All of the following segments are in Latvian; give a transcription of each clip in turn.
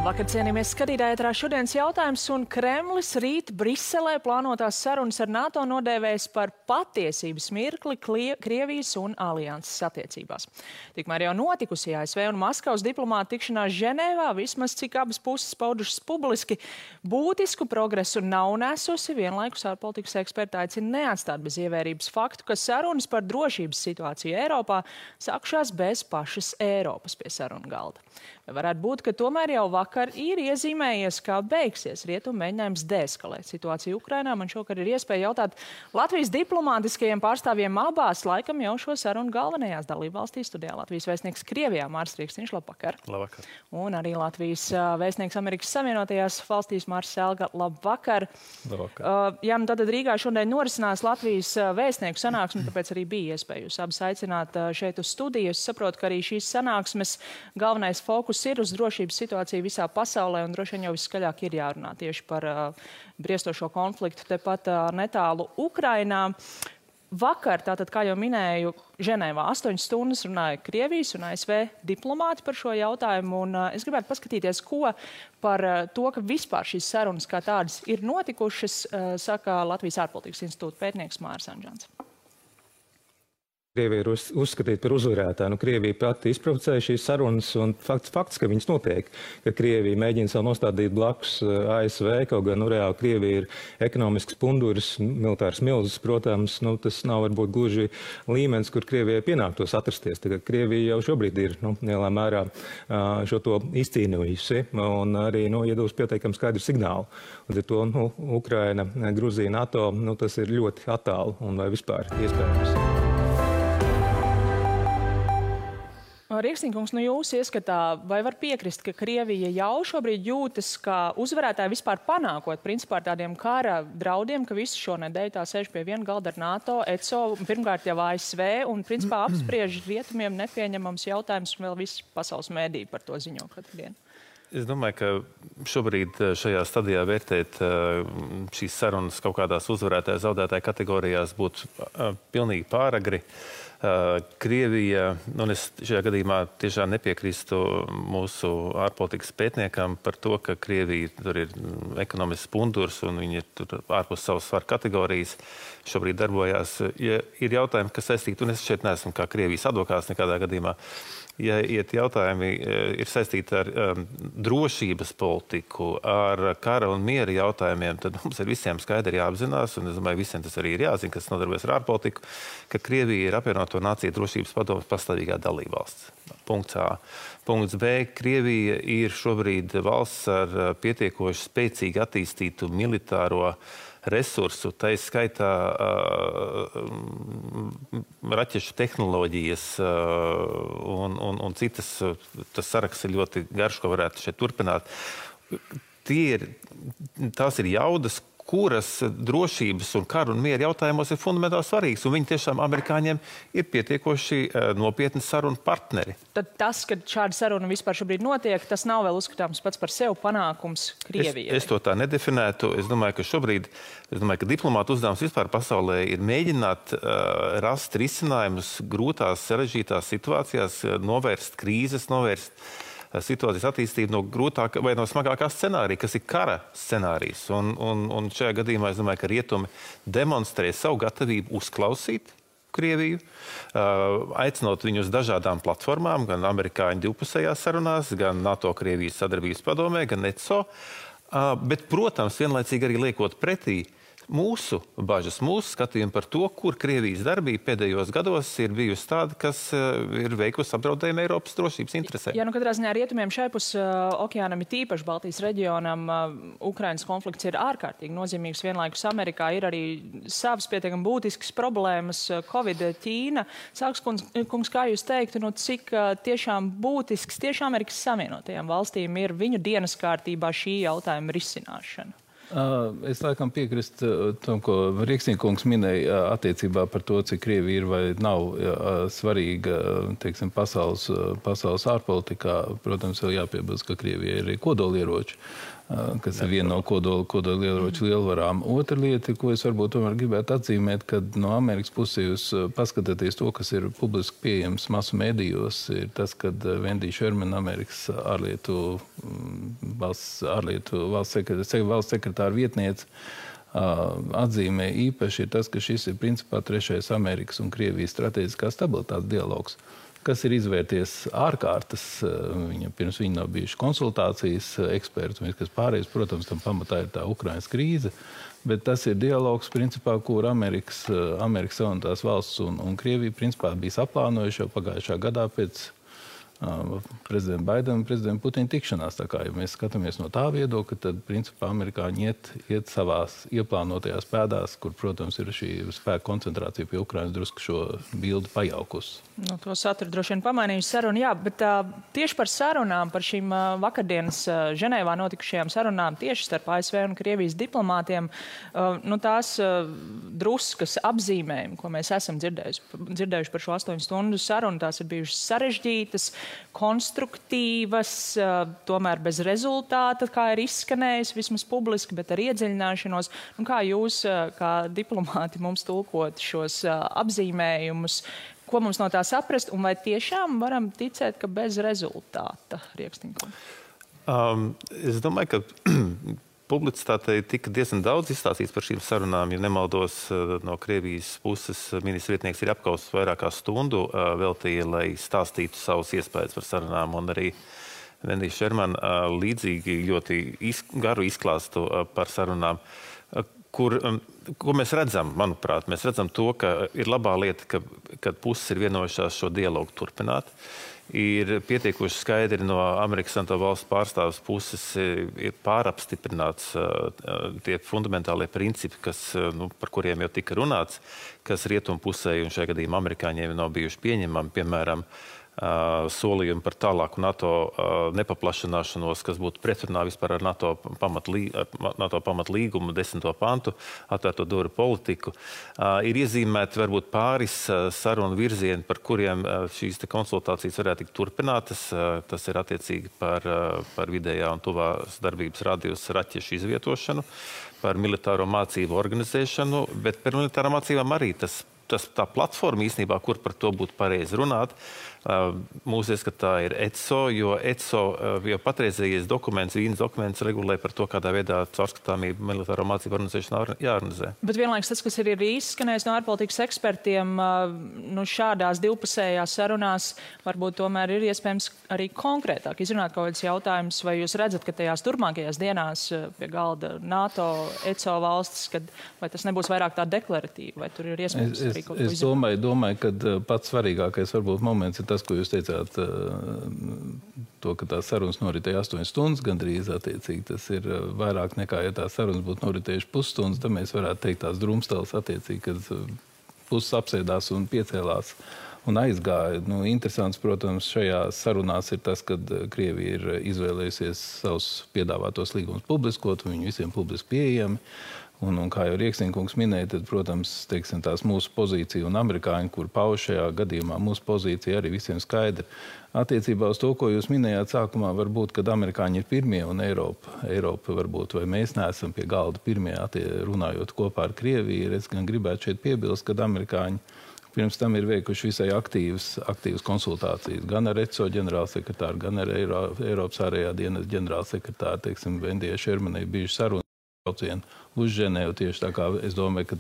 Labvakar, cienījamies skatītāji, ētrā šodienas jautājums, un Kremlis rīt Briselē plānotās sarunas ar NATO nodēvēs par patiesības mirkli Krievijas un alianses attiecībās. Tikmēr jau notikusi ASV un Maskavas diplomāta tikšanās Ženēvā, vismaz cik abas puses paudušas publiski, būtisku progresu nav nesusi, vienlaikus ārpolitikas eksperti aicina neatstāt bez ievērības faktu, ka sarunas par drošības situāciju Eiropā sākušās bez pašas Eiropas pie sarunu galda. Vai varētu būt, ka tomēr jau vakar ir iezīmējies, kā beigsies rietumu mēģinājums deeskalēt situāciju Ukrainā? Man šokar ir iespēja jautāt Latvijas diplomātiskajiem pārstāvjiem abās, laikam jau šo sarunu galvenajās dalībvalstīs. Studijā Latvijas vēstnieks Krievijā Māris Rīkstiņš, labvakar. Labvakar. Un arī Latvijas vēstnieks Amerikas Savienotajās valstīs Māris Selga, labvakar. Labvakar. Jā, nu tad Rīgā šodien norisinās Latvijas vēstnieku sanāksme, tāpēc arī bija iespēja jūs abas aicināt šeit uz studiju. Es saprotu, ka arī šīs sanāksmes galvenais fokus ir uz drošības situāciju visā pasaulē, un droši vien jau viskaļāk ir jārunā tieši par briestošo konfliktu tepat netālu Ukrainā. Vakar, tātad, kā jau minēju, Ženēvā 8 stundas runāja Krievijas un ASV diplomāti par šo jautājumu, un es gribētu paskatīties, ko par to, ka vispār šīs sarunas kā tādas ir notikušas, saka Latvijas ārpolitikas institūta pētnieks Māris Anžants. Krievija ir uzskatīta par uzvarētāju. Krievija pati izprovocēja šīs sarunas, un fakts, ka viņas notiek, ka Krievija mēģina sev nostādīt blakus ASV, kaut gan reāli Krievija ir ekonomisks punduris, militārs milzis, protams, tas nav varbūt gluži līmenis, kur Krievijai pienāktos atrasties. Tagad Krievija jau šobrīd ir lielā mērā šo to izcīnījusi, un arī iedos pietiekami skaidru signālu. Līdz ar to Ukraina, Gruzija, NATO, tas ir ļoti attālu un vai vispār iespējams. Rīkstiņkungs, jūs ieskatā, vai var piekrist, ka Krievija jau šobrīd jūtas kā uzvarētāja vispār panākot principā ar tādiem kara draudiem, ka visu šo nedēļu tā sēž pie viena galda ar NATO, ECO, pirmkārt jau ASV, un principā apspriež rietumiem nepieņemams jautājums, un vēl visi pasaules mēdī par to ziņo katru dienu? Es domāju, ka šobrīd šajā stadijā vērtēt šīs sarunas kaut kādās uzvarētāja zaudētāja kategorijās būtu pilnīgi pāragri. Krievija, un es šajā gadījumā tiešām nepiekrīstu mūsu ārpolitikas pētniekam par to, ka Krievija tur ir ekonomisks pundurs un viņi ir tur ārpus savas svaru kategorijas šobrīd darbojās. Ja ir jautājumi, kas saistīti, un es šeit neesmu kā Krievijas advokāts nekādā gadījumā, ja jautājumi ir saistīti ar drošības politiku, ar kara un miera jautājumiem, tad mums ir visiem skaidri jāapzinās, un es domāju, visiem tas arī ir jāzina, kas nodarbojas ar ārpolitiku, ka Krievija ir apvienoto nāciju drošības padomes pastāvīgā dalībvalsts. Punkts A. Punkts B. Krievija ir šobrīd valsts ar pietiekoši spēcīgi attīstītu militāro resursu, tā skaitā raķešu tehnoloģijas un citas. Tas saraksts ir ļoti garš, ko varētu šeit turpināt. Tās ir jaudas, kuras drošības un karu un miera jautājumos ir fundamentāli svarīgas, un viņi tiešām amerikāņiem ir pietiekoši nopietni sarunu partneri. Tad tas, ka šāda saruna vispār šobrīd notiek, tas nav vēl uzskatāms pats par sevi panākums Krievijai? Es to tā nedefinētu. Es domāju, ka diplomātu uzdevums vispār pasaulē ir mēģināt rast risinājumus grūtās, sarežģītās situācijās, novērst krīzes, novērst situācijas attīstību no grūtākā vai no smagākā scenārija, kas ir kara scenārijs. Un šajā gadījumā es domāju, ka rietumi demonstrē savu gatavību uzklausīt Krieviju, aicinot viņu uz dažādām platformām, gan amerikāņu divpusējās sarunās, gan NATO-Krievijas sadarbības padomē, gan ECO. Bet, protams, vienlaicīgi arī liekot pretī mūsu bažas, mūsu skatījumu par to, kur Krievijas darbība pēdējos gados ir bijusi tāda, kas ir veikusi apdraudējumu Eiropas drošības interesēm. Jā, katrā ziņā rietumiem šaipus okeānam ir tīpaši Baltijas reģionam. Ukrainas konflikts ir ārkārtīgi nozīmīgs. Vienlaikus Amerikā ir arī savas pietiekami būtiskas problēmas. Covid, Ķīna. Sāks kungs, kā jūs teiktu, cik tiešām būtisks tieši Amerikas Savienotajām valstīm ir viņu dienas kārtībā šī jautājuma risināšana? Es laikam piekrist tam, ko Rīkstiņkungs minēja attiecībā par to, cik Krievija ir vai nav svarīga, teiksim, pasaules ārpolitikā. Protams, vēl jāpiebilst, ka Krievija ir arī kodolieroči. kas ir viena no kodolieroču lielvarām. Otra lieta, ko es varbūt tomēr gribētu atzīmēt, kad no Amerikas puses jūs paskatāties to, kas ir publiski pieejams masu medijos, ir tas, kad Wendy Sherman, Amerikas valsts sekretāra vietniece, atzīmē īpaši ir tas, ka šis ir principā trešais Amerikas un Krievijas strateģiskās stabilitātes dialogs, kas ir izvērties ārkārtas. Pirms viņa nav bijuši konsultācijas eksperti, un kas pārējais, protams, tam pamatā ir tā Ukrainas krīze, bet tas ir dialogs, principā, kur Amerikas Savienotās valsts un Krievija, principā, bija saplānojuši jau pagājušā gadā pēc prezidenta Baidena un prezidenta Putina tikšanās. Tā kā, ja mēs skatāmies no tā viedokļa, tad, principā, amerikāņi iet savās ieplānotajās pēdās, kur, protams, ir šī spēka koncentrācija pie Ukrainas drusku šo bildi pajaukusi. Nu, to saturu droši vien pamainījuši sarunu, jā, bet tieši par sarunām, par šīm vakardienas Ženēvā notikušajām sarunām tieši starp ASV un Krievijas diplomātiem, nu, tās druskas apzīmējumi, ko mēs esam dzirdējuši par šo 8 stundu sarunu, tās ir bijušas sarežģītas, konstruktīvas, tomēr bez rezultāta, kā ir izskanējis vismaz publiski, bet ar iedziļināšanos. Nu, kā jūs, kā diplomāti, mums tulkot šos apzīmējumus, ko mums no tā saprast, un vai tiešām varam ticēt, ka bez rezultāta, Rieksniņkungs? Es domāju, ka publicitātei tika diezgan daudz izstāstīts par šīm sarunām. Ja nemaldos, no Krievijas puses ministra vietnieks ir apkaus vairāk kā stundu veltīja, lai stāstītu savus iespējas par sarunām, un arī Wendy Sherman līdzīgi ļoti garu izklāstu par sarunām, ko mēs redzam, manuprāt, mēs redzam to, ka ir labā lieta, kad puses ir vienojušās šo dialogu turpināt. Ir pietiekuši skaidri no Amerikas Savienoto Valstu pārstāvis puses ir pārapstiprināts tie fundamentālie principi, par kuriem jau tika runāts, kas rietumu pusē un šajā gadījumā amerikāņiem nav bijuši pieņemami, piemēram, solījumi par tālāku NATO nepaplašanāšanos, kas būtu pretrunā vispār ar NATO pamatlīgumu 10. pantu, atvērto durvju politiku. Ir iezīmēti varbūt pāris sarunu virzieni, par kuriem šīs konsultācijas varētu tikt turpinātas. Tas ir attiecīgi par vidējā un tuvās darbības radius raķešu izvietošanu, par militāro mācību organizēšanu, bet par militāro mācībām arī tā platforma īstenībā, kur par to būtu pareizi runāt. Mūsu ieskatā ir ECO, jo ECO jau patreizējais dokuments, Vīnes dokuments regulē par to, kādā veidā caurskatāmību militāro mācību organizēšana jāorganizē. Bet vienlaikus tas, kas ir izskanējis no ārpolitikas ekspertiem, nu šādās divpusējās sarunās varbūt tomēr ir iespējams arī konkrētāk izrunāt kaut kāds jautājums, vai jūs redzat, ka tajās turpmākajās dienās pie galda NATO, ECO valstis, vai tas nebūs vairāk tā deklaratīva, vai tur ir iespējams arī kaut ko izrunāt? Es domāju, ka pats svarīgākais varbūt moments ir tas, ko jūs teicāt, to, ka tās sarunas noritēja 8 stundas gandrīz attiecīgi. Tas ir vairāk nekā, ja tās sarunas būtu noritējuši pusstundas, tad mēs varētu teikt tās drumstēles attiecīgi, kad puses apsēdās un piecēlās un aizgāja. Nu, interesants, protams, šajās sarunās ir tas, kad Krievija ir izvēlējusies savus piedāvātos līgumus publiskot, un viņi visiem publiski pieejami. Un kā jau Rieksniņkungs minēja, tad, protams, teiksim, tās mūsu pozīcija un amerikāņi, kur pauž šajā gadījumā, mūsu pozīcija arī visiem skaidra. Attiecībā uz to, ko jūs minējāt sākumā, varbūt, kad amerikāņi ir pirmie un Eiropa varbūt, vai mēs neesam pie galda pirmie, runājot kopā ar Krieviju, es gan gribētu šeit piebilst, kad amerikāņi pirms tam ir veikuši visai aktīvas konsultācijas gan ar ECO ģenerālsekretāru, gan ar Eiropas ārējā dienas ģenerālsekretāru, teiksim, Vendijai Šermanai bijuši saruna uz Ženēvu tieši tā kā es domāju, ka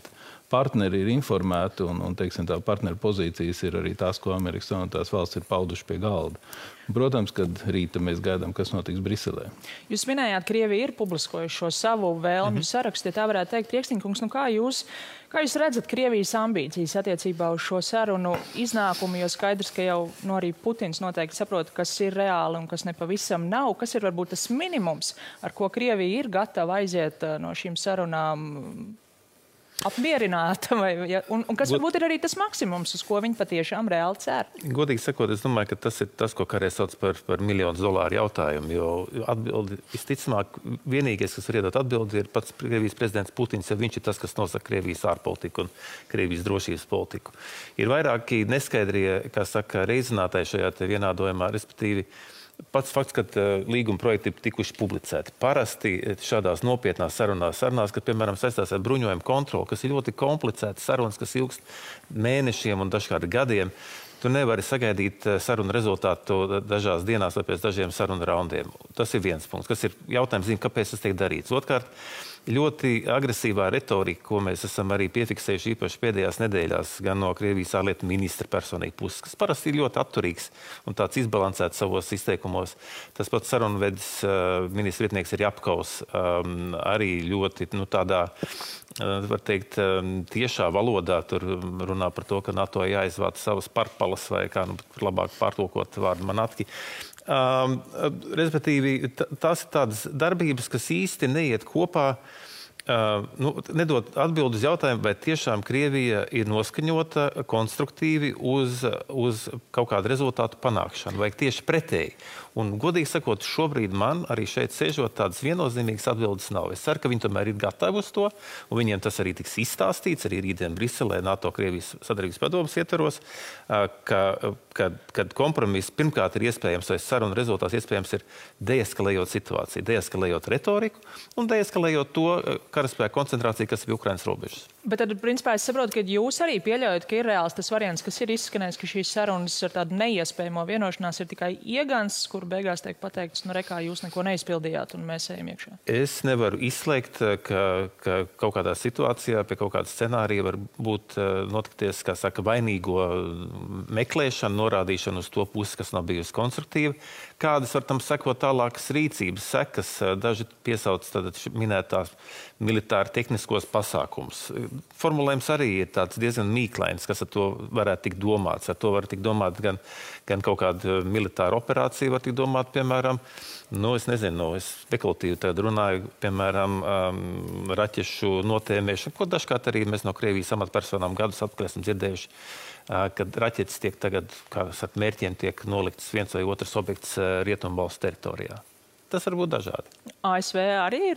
partneri ir informēti un teiksim, tā partneru pozīcijas ir arī tās, ko Amerikas Savienotās valsts ir pauduši pie galda. Protams, kad rīta mēs gaidām, kas notiks Briselē. Jūs minējāt, Krievija ir publiskojuši šo savu vēlmju sarakstu, ja tā varētu teikt. Rieksniņkungs, nu kā jūs redzat Krievijas ambīcijas attiecībā uz šo sarunu iznākumu, jo skaidrs, ka jau arī Putins noteikti saprot, kas ir reāli un kas nepavisam nav, kas ir varbūt tas minimums, ar ko Krievija ir gatava aiziet no šīm sarunām apmierināta, un kas varbūt ir arī tas maksimums, uz ko viņi patiešām reāli cer? Godīgi sakot, es domāju, ka tas ir tas, ko kādreiz sauc par $1,000,000 jautājumu, jo atbildi, visticamāk, vienīgais, kas var iedot atbildi, ir pats Krievijas prezidents Putins, jo viņš ir tas, kas nosaka Krievijas ārpolitiku un Krievijas drošības politiku. Ir vairāki neskaidrie, kā saka, reizinātāji šajā te vienādojumā, respektīvi, Pats fakts, ka līguma projekti ir tikuši publicēti. Parasti šādās nopietnās sarunās, kad, piemēram, saistās ar bruņojumu kontroli, kas ir ļoti komplicētas sarunas, kas ilgst mēnešiem un dažkārt gadiem, tu nevari sagaidīt sarunu rezultātu dažās dienās vai pēc dažiem sarunu raundiem. Tas ir viens punkts, kas ir jautājums, kāpēc tas tiek darīts. Otkārt, ļoti agresīvā retorika, ko mēs esam arī piefiksējuši īpaši pēdējās nedēļās, gan no Krievijas ārlietu ministra personīgi puses, kas parasti ir ļoti atturīgs un tāds izbalansēts savos izteikumos. Tas pats sarunvedis ministra vietnieks ir Japkaus, arī ļoti tādā, var teikt, tiešā valodā tur runā par to, ka NATO jāizvāc savas parpalas vai kā labāk pārtulkot vārdu manatki. Respektīvi, tās ir tādas darbības, kas īsti neiet kopā, nedod atbildi uz jautājumu, vai tiešām Krievija ir noskaņota konstruktīvi uz kaut kādu rezultātu panākšanu, vai tieši pretēji. Un, godīgi sakot, šobrīd man arī šeit sēžot tādas viennozīmīgas atbildes nav. Es ceru, ka viņi tomēr ir gatavi uz to, un viņiem tas arī tiks izstāstīts, arī rītdien Briselē, NATO-Krievijas sadarbības padomes ietvaros, kad kompromiss pirmkārt ir iespējams, vai saruna rezultāts iespējams ir deeskalējot situāciju, deeskalējot retoriku un deeskalējot to karaspēku koncentrāciju, kas ir Ukrainas robežas. Bet tad, principā, es saprotu, ka jūs arī pieļaujat, ka ir reāls tas variants, kas ir izskanējis, ka šīs sarunas ar tādu neiespējamo vienošanās ir tikai iegans, kur beigās tiek pateikts, rekā jūs neko neizpildījāt un mēs ejam iekšā. Es nevaru izslēgt, ka kaut kādā situācijā pie kaut kāda scenārija var būt notikties, kā saka, vainīgo meklēšana, norādīšana uz to pusi, kas nav bijusi konstruktīva. Kādas var tam sekot tālākas rīcības sekas, daži piesauc minētās militāri tehniskos pasākums. Formulējums arī ir tāds diezgan mīklains, kas ar to varētu tikt domāts. Ar to var tikt domāt gan kaut kāda militāra operācija, var tikt domāt, piemēram, es nezinu, es spekulatīvi tagad runāju, piemēram, raķešu notēmēšanu, ko dažkārt arī mēs no Krievijas amatpersonām gadus atpakaļ esam dzirdējuši, kad raķetes tiek tagad, kā ar mērķiem tiek nolikts viens vai otrs objekts Rietumvalstu teritorijā. Tas var būt dažādi. ASV arī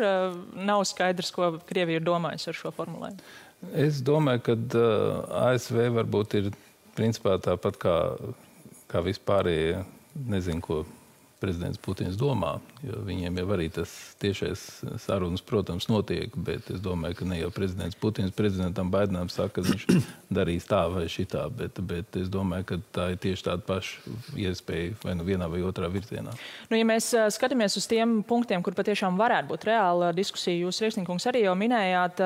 nav skaidrs, ko Krievija ir domājusi ar šo formulējumu. Es domāju, ka ASV varbūt ir principā tāpat kā vispārējie, nezinu, ko prezidents Putins domā, jo viņiem jau arī tas tiešais sarunas, protams, notiek, bet es domāju, ka ne jau prezidents Putins prezidentam Baidenam saka, ka viņš darīs tā vai šitā, bet es domāju, ka tā ir tieši tāda paša iespēja vai vienā vai otrā virzienā. Ja mēs skatāmies uz tiem punktiem, kur patiešām varētu būt reāla diskusija, jūs, Rieksnikungs, arī jau minējāt,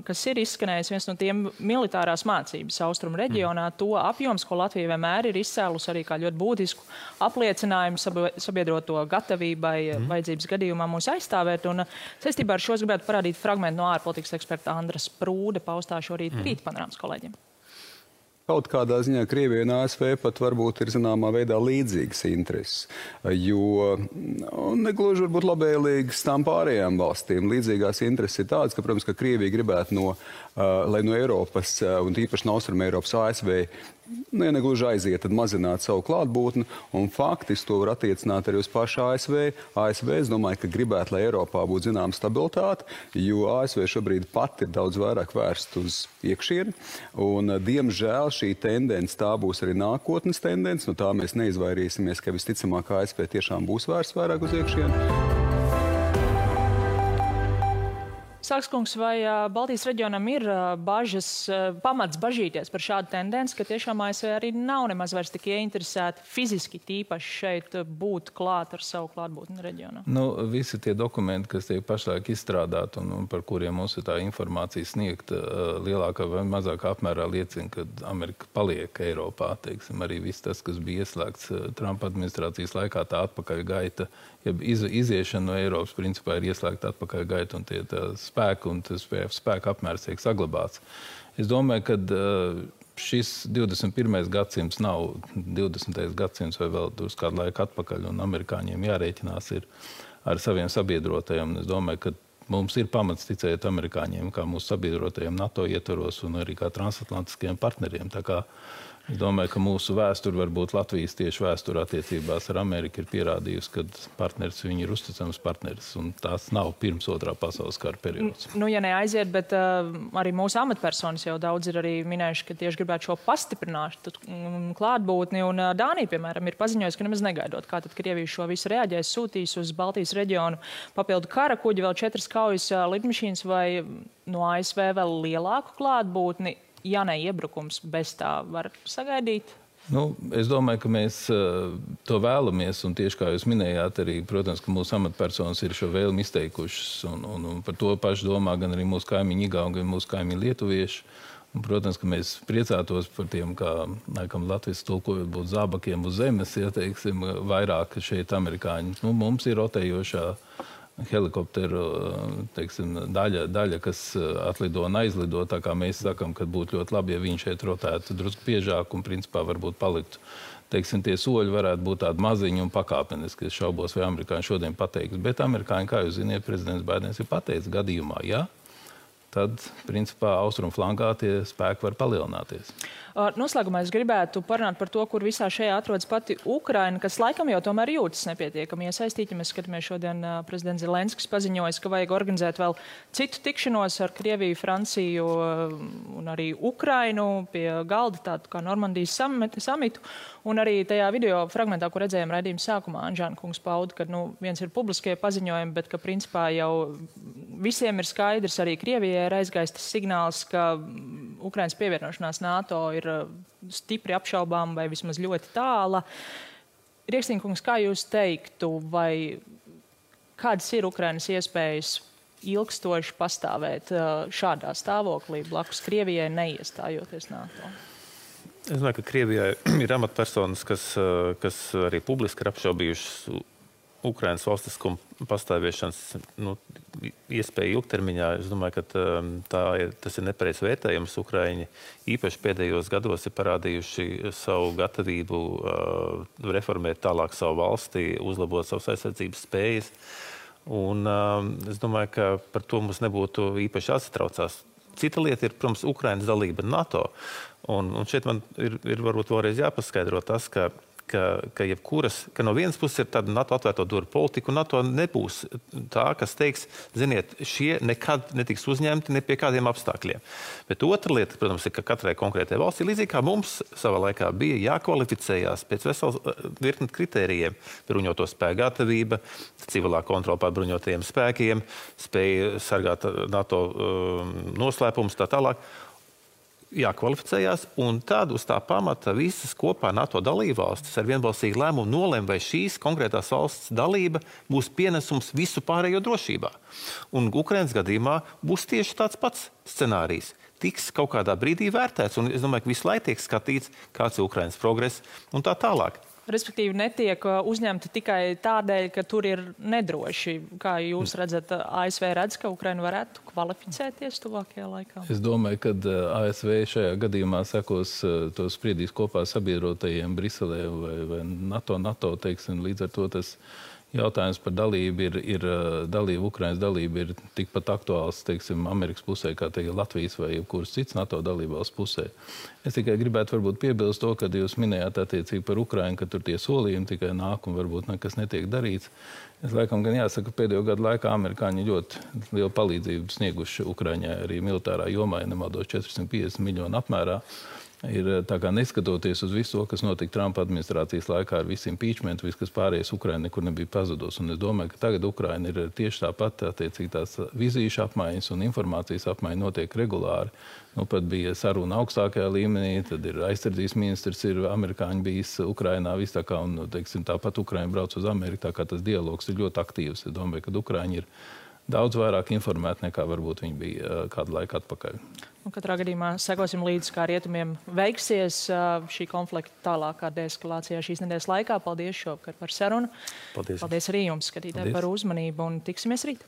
kas ir izskanējis viens no tiem militārās mācības austrumu reģionā, to apjoms, ko Latvija vienmēr ir izcēlus arī kā ļoti būtisku apliecinājumu sabiedroto gatavībai vajadzības gadījumā mūs aizstāvēt. Un saistībā ar šo es gribētu parādīt fragmentu no ārpolitikas eksperta Andras Prūde paustā šorīt Rīta panorāmas kolēģiem. Kaut kādā ziņā Krievija un ASV pat varbūt ir zināmā veidā līdzīgas intereses, jo negluži varbūt labēlīgas tām pārējām valstīm. Līdzīgās intereses ir tādas, ka, protams, ka Krievija gribētu lai no Eiropas un īpaši no Austruma Eiropas ASV ja negluži aiziet, tad mazināt savu klātbūtni, un faktiski to var attiecināt arī uz pašu ASV. ASV, es domāju, ka gribētu, lai Eiropā būtu zināma stabilitāte, jo ASV šobrīd pat ir daudz vairāk vērst uz iekšieni, un diemžēl šī tendence, tā būs arī nākotnes tendence, no tā mēs neizvairīsimies, ka visticamāk ASV tiešām būs vērsts vairāk uz iekšieni. Sākskungs, vai Baltijas reģionam ir pamats bažīties par šādu tendenci, ka tiešām ASV arī nav nemaz vairs tik ieinteresēti fiziski tīpaši šeit būt klāt ar savu klātbūtni reģionā? Visi tie dokumenti, kas tiek pašlaik izstrādāti un par kuriem mums ir tā informācija sniegta, lielākā vai mazākā apmērā liecina, ka Amerika paliek Eiropā. Teiksim, arī viss tas, kas bija ieslēgts Trumpa administrācijas laikā, tā atpakaļ gaita, ja iziešana no Eiropas principā ir ieslēgta atpakaļ gaita un tie spēku un tas spēku apmērs tiek saglabāts. Es domāju, ka šis 21. gadsimts nav 20. gadsimts vai vēl uz kādu laiku atpakaļ, un amerikāņiem jārēķinās ir ar saviem sabiedrotajiem. Es domāju, ka mums ir pamats ticēt amerikāņiem kā mūsu sabiedrotajiem NATO ietvaros un arī kā transatlantiskajiem partneriem. Tā kā Es domāju, ka mūsu vēsture, varbūt Latvijas tieši vēsture attiecībās ar Ameriku ir pierādījusi, ka partneris viņi ir uzticams partneris, un tās nav pirms otrā pasaules kara periods. Ja neaiziet, bet arī mūsu amatpersonas jau daudz ir arī minējuši, ka tieši gribētu šo pastiprinātu klātbūtni, un Dānija, piemēram, ir paziņojusi, ka nemaz negaidot, kā tad Krievija šo visu reaģēs, sūtīs uz Baltijas reģionu papildu kara kuģi, vēl 4 kaujas lidmašīnas vai no ASV vēl lielāku klātbūtni. Ja ne iebrukums, bez tā var sagaidīt? Es domāju, ka mēs to vēlamies, un tieši kā jūs minējāt, arī, protams, ka mūsu amatpersonas ir šo vēlmi izteikušas, un par to pašu domā gan arī mūsu kaimiņi Igauņi, gan mūsu kaimiņi lietuvieši. Un, protams, ka mēs priecātos par tiem, kā, laikam, Latvijas tulkojot būtu zābakiem uz zemes, ja teiksim, vairāk šeit amerikāņi. Mums ir rotējošā helikopteru teiksim, daļa, kas atlido un aizlido, tā kā mēs sakam, ka būtu ļoti labi, ja viņi šeit rotētu drusku biežāk un principā varbūt paliktu. Teiksim, tie soļi varētu būt tādi maziņi un pakāpeniski. Es šaubos, vai amerikāņi šodien pateiks. Bet amerikāņi, kā jūs ziniet, prezidents Baidens ir pateicis gadījumā, ja, tad, principā, austrumu flankā tie spēki var palielināties. Noslēgumā es gribētu parunāt par to, kur visā šajā atrodas pati Ukraina, kas laikam jau tomēr jūtas nepietiekami iesaistīti. Mēs skatāmies šodien prezidents Zelenskis paziņojis, ka vajag organizēt vēl citu tikšanos ar Krieviju, Franciju un arī Ukrainu pie galda, tādu kā Normandijas samitu. Un arī tajā video fragmentā, kur redzējām raidījuma sākumā, Anžāna kungs pauda, ka viens ir publiskie paziņojumi, bet ka principā jau visiem ir skaidrs, arī Krievijai ir aizgājis tas signāls, ka Ukrainas pievienošanās NATO ir stipri apšaubām vai vismaz ļoti tāla. Rieksniņkungs, kā jūs teiktu, vai kādas ir Ukrainas iespējas ilgstoši pastāvēt šādā stāvoklī blakus Krievijai neiestājoties NATO? Es domāju, ka Krievijai ir amatpersonas, kas arī publiski ir apšaubījušas Ukrainas valstiskuma pastāvēšanas iespēju ilgtermiņā. Es domāju, ka tas ir nepareizs vērtējums. Ukraiņi īpaši pēdējos gados ir parādījuši savu gatavību reformēt tālāk savu valsti, uzlabot savas aizsardzības spējas. Un es domāju, ka par to mums nebūtu īpaši jāsatraucās. Cita lieta ir, protams, Ukrainas dalība NATO. Un šeit man ir varbūt vēlreiz jāpaskaidro tas, ka no vienas puses ir tāda NATO atvērto durvju politika, un NATO nebūs tā, kas teiks, ziniet, šie nekad netiks uzņemti ne pie kādiem apstākļiem. Bet otra lieta, protams, ir, ka katrai konkrētai valstī, līdzīgi kā mums savā laikā bija jākvalificējās pēc veselas virkni kritērijiem, bruņoto spēku gatavība, civilā kontrola pār bruņotajiem spēkiem, spēja sargāt NATO noslēpumus, tā tālāk. Jākvalificējās, un tad uz tā pamata visas kopā NATO dalībvalstis ar vienbalsīgu lēmumu nolem, vai šīs konkrētās valsts dalība būs pienesums visu pārējo drošībā. Un Ukrainas gadījumā būs tieši tāds pats scenārijs. Tiks kaut kādā brīdī vērtēts, un es domāju, ka visu laiku tiek skatīts, kāds ir Ukrainas progress un tā tālāk. Respektīvi netiek uzņemti tikai tādēļ, ka tur ir nedroši. Kā jūs redzat, ASV redz, ka Ukraina varētu kvalificēties tuvākajā laikā? Es domāju, ka ASV šajā gadījumā sekos to spriedīs kopā sabiedrotajiem Briselē vai NATO, teiksim, līdz ar to tas jautājums par dalību Ukrainas dalība ir tikpat aktuāls, teiksim, Amerikas pusē, kā Latvijas vai jebkuras cits NATO dalībvalsts pusē. Es tikai gribētu varbūt piebilst to, kad jūs minējāt attiecīgi par Ukrainu, ka tur tie solījumi tikai nāk un varbūt nekas netiek darīts. Es laikam gan jāsaka, pēdējo gadu laikā amerikāņi ļoti lielu palīdzību snieguši Ukraiņai arī militārā jomā, ja nemaldos 450 miljonu apmērā. Ir tā kā neskatoties uz visu to, kas notika Trumpa administrācijas laikā ar visu impeachment, viss, kas pārējais Ukraina nekur nebija pazudus. Un es domāju, ka tagad Ukraina ir tieši tāpat, attiecīgi tās vizīšu apmaiņas un informācijas apmaiņa notiek regulāri. Pat bija saruna augstākajā līmenī, tad ir aizsardzības ministrs, ir amerikāņi bijis Ukrainā, viss tā kā, un, teiksim, tāpat Ukraina brauc uz Ameriku, tā kā tas dialogs ir ļoti aktīvs. Es domāju, ka Ukraiņi ir daudz vairāk informēti nekā varbūt viņi bija kādu laiku atpakaļ. Katrā gadījumā sekosim līdzi, kā rietumiem veiksies šī konflikta tālākā deeskalācijā šīs nedēļas laikā. Paldies šovakar par sarunu. Paldies arī jums, skatītāji, par uzmanību, un tiksimies rīt.